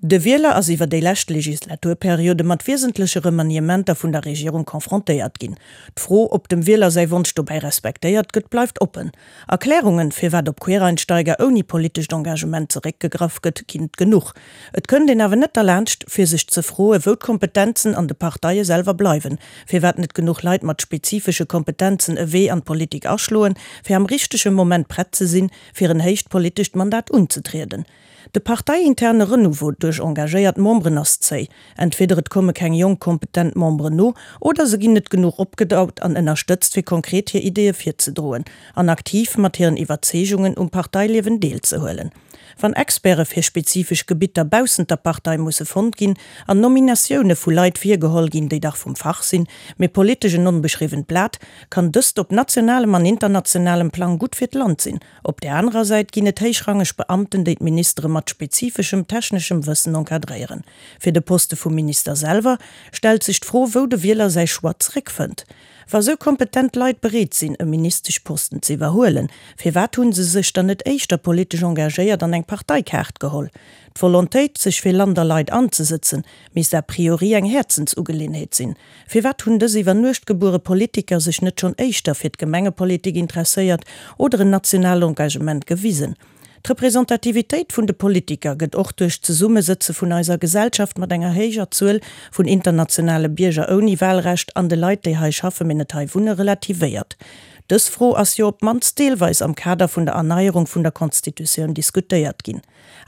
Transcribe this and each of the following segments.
De Wieler ass iwwer déi lescht Legislaturperiode mat wiesentleche Remaniementer vun der Regierung confrontéiert ginn. D'Fro, ob dem Wieler säi Wonsch dobäi respektéiert gëtt, bleift oppen. Erklärungen, firwat op Quereinsteiger ouni politescht Engagement zeréckgegraff gëtt, ginn et genuch. Et kënnt een awer net derlaanscht, fir sech ze froen, wou d'Kompetenzen an de Parteie selwer bleiwen, firwat net genuch Leit mat spezifesche Kompetenzen e Wee an d'Politik aschloen, fir am richtege Moment prett ze sinn, fir en héicht politescht Mandat unzetrieden. De parteiinterne Renouveau duerch engagéiert Memberen ass zéi. Entweder et komme keng jonk kompetent Memberen no, oder se ginn net genuch opgedaut an ënnerstëtzt fir konkret hir Ideeë virzedroen an aktiv mat hiren Iwwerzeegungen um Parteiliewen deelzehuelen. Wann Experte fir spezifesch Gebitter baussent der Partei musse fonnt ginn an Nominatioune vu Leit virgeholl ginn, déi dach vum Fach sinn, mee politesch en onbeschriwwent Blat, kann dëst op nationalem an internationalem Plang gutt fir d'Land sinn. Op där anerer Säit ginn et héichrangeg Beamten, déi d'Ministere mat spezifeschem techneschem Wëssen encadréieren. Fir de Poste vum Minister selwer stellt sech d'Fro, wou de Wieler säi Choix zeréckfënnt. Wa sou kompetent Leit bereet sinn, e Ministeschposten ze iwwerhuelen, firwat hu se sech dann net éischter politesch engagéiert an eng Parteikaart geholl? D'Volontéit, sech fir Land a Leit anzesëtzen, misst a priori eng Häerzensugeleeënheet sinn. Firwat hunn dës iwwer Nuecht gebuere Politiker sech net schonn éischter fir d'Gemengepolitik interesséiert oder en nationaalt Engagement gewisen? D'Representativitéit vun de Politiker gëtt och duerch d'Zesummesëtze vun eiser Gesellschaft mat enger héijer Zuel vun internationale Bierger ouni Wahlrecht an de Leit, déi hei schaffe mee net hei wunne, relativéiert. Dës Fro ass jo op d'mannst deelweis am Kader vun der Erneierung vun der Constitutioun diskutéiert ginn.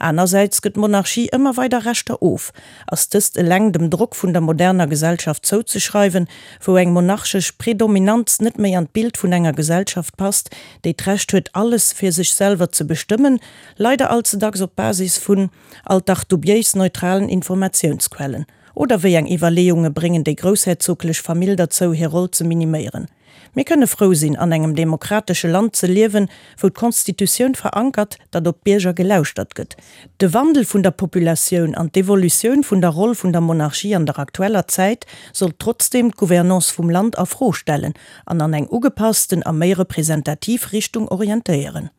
Anersäits gëtt d'Monarchie ëmmer weider Rechter of. Ass dëst eleng dem Drock vun der moderner Gesellschaft zouzeschreiwen, wou eng monarchesch Predominanz net méi an d'Bild vun enger Gesellschaft passt, déi d'Recht huet alles fir sech selwer ze bestëmmen, leider allze dacks op Basis vun alt dach dubiéis neutralen Informatiounsquellen? Oder wéi eng Iwwerleeunge bréngen déi groussherzoglech Famill derzou hir Roll ze miniméieren? Mir kënne frou sinn, an engem demokratesche Land ze liewen, wou d'Constitutioun verankert, datt op d'Bierger gelauschtert gëtt. De Wandel vun der Populatioun an d'Evolutioun vun der Roll vun der Monarchie an der aktueller Zäit sollt trotzdeem d'Gouvernance vum Land a Fro stellen an an eng ugepassten a méi representativ Richtung orientéieren.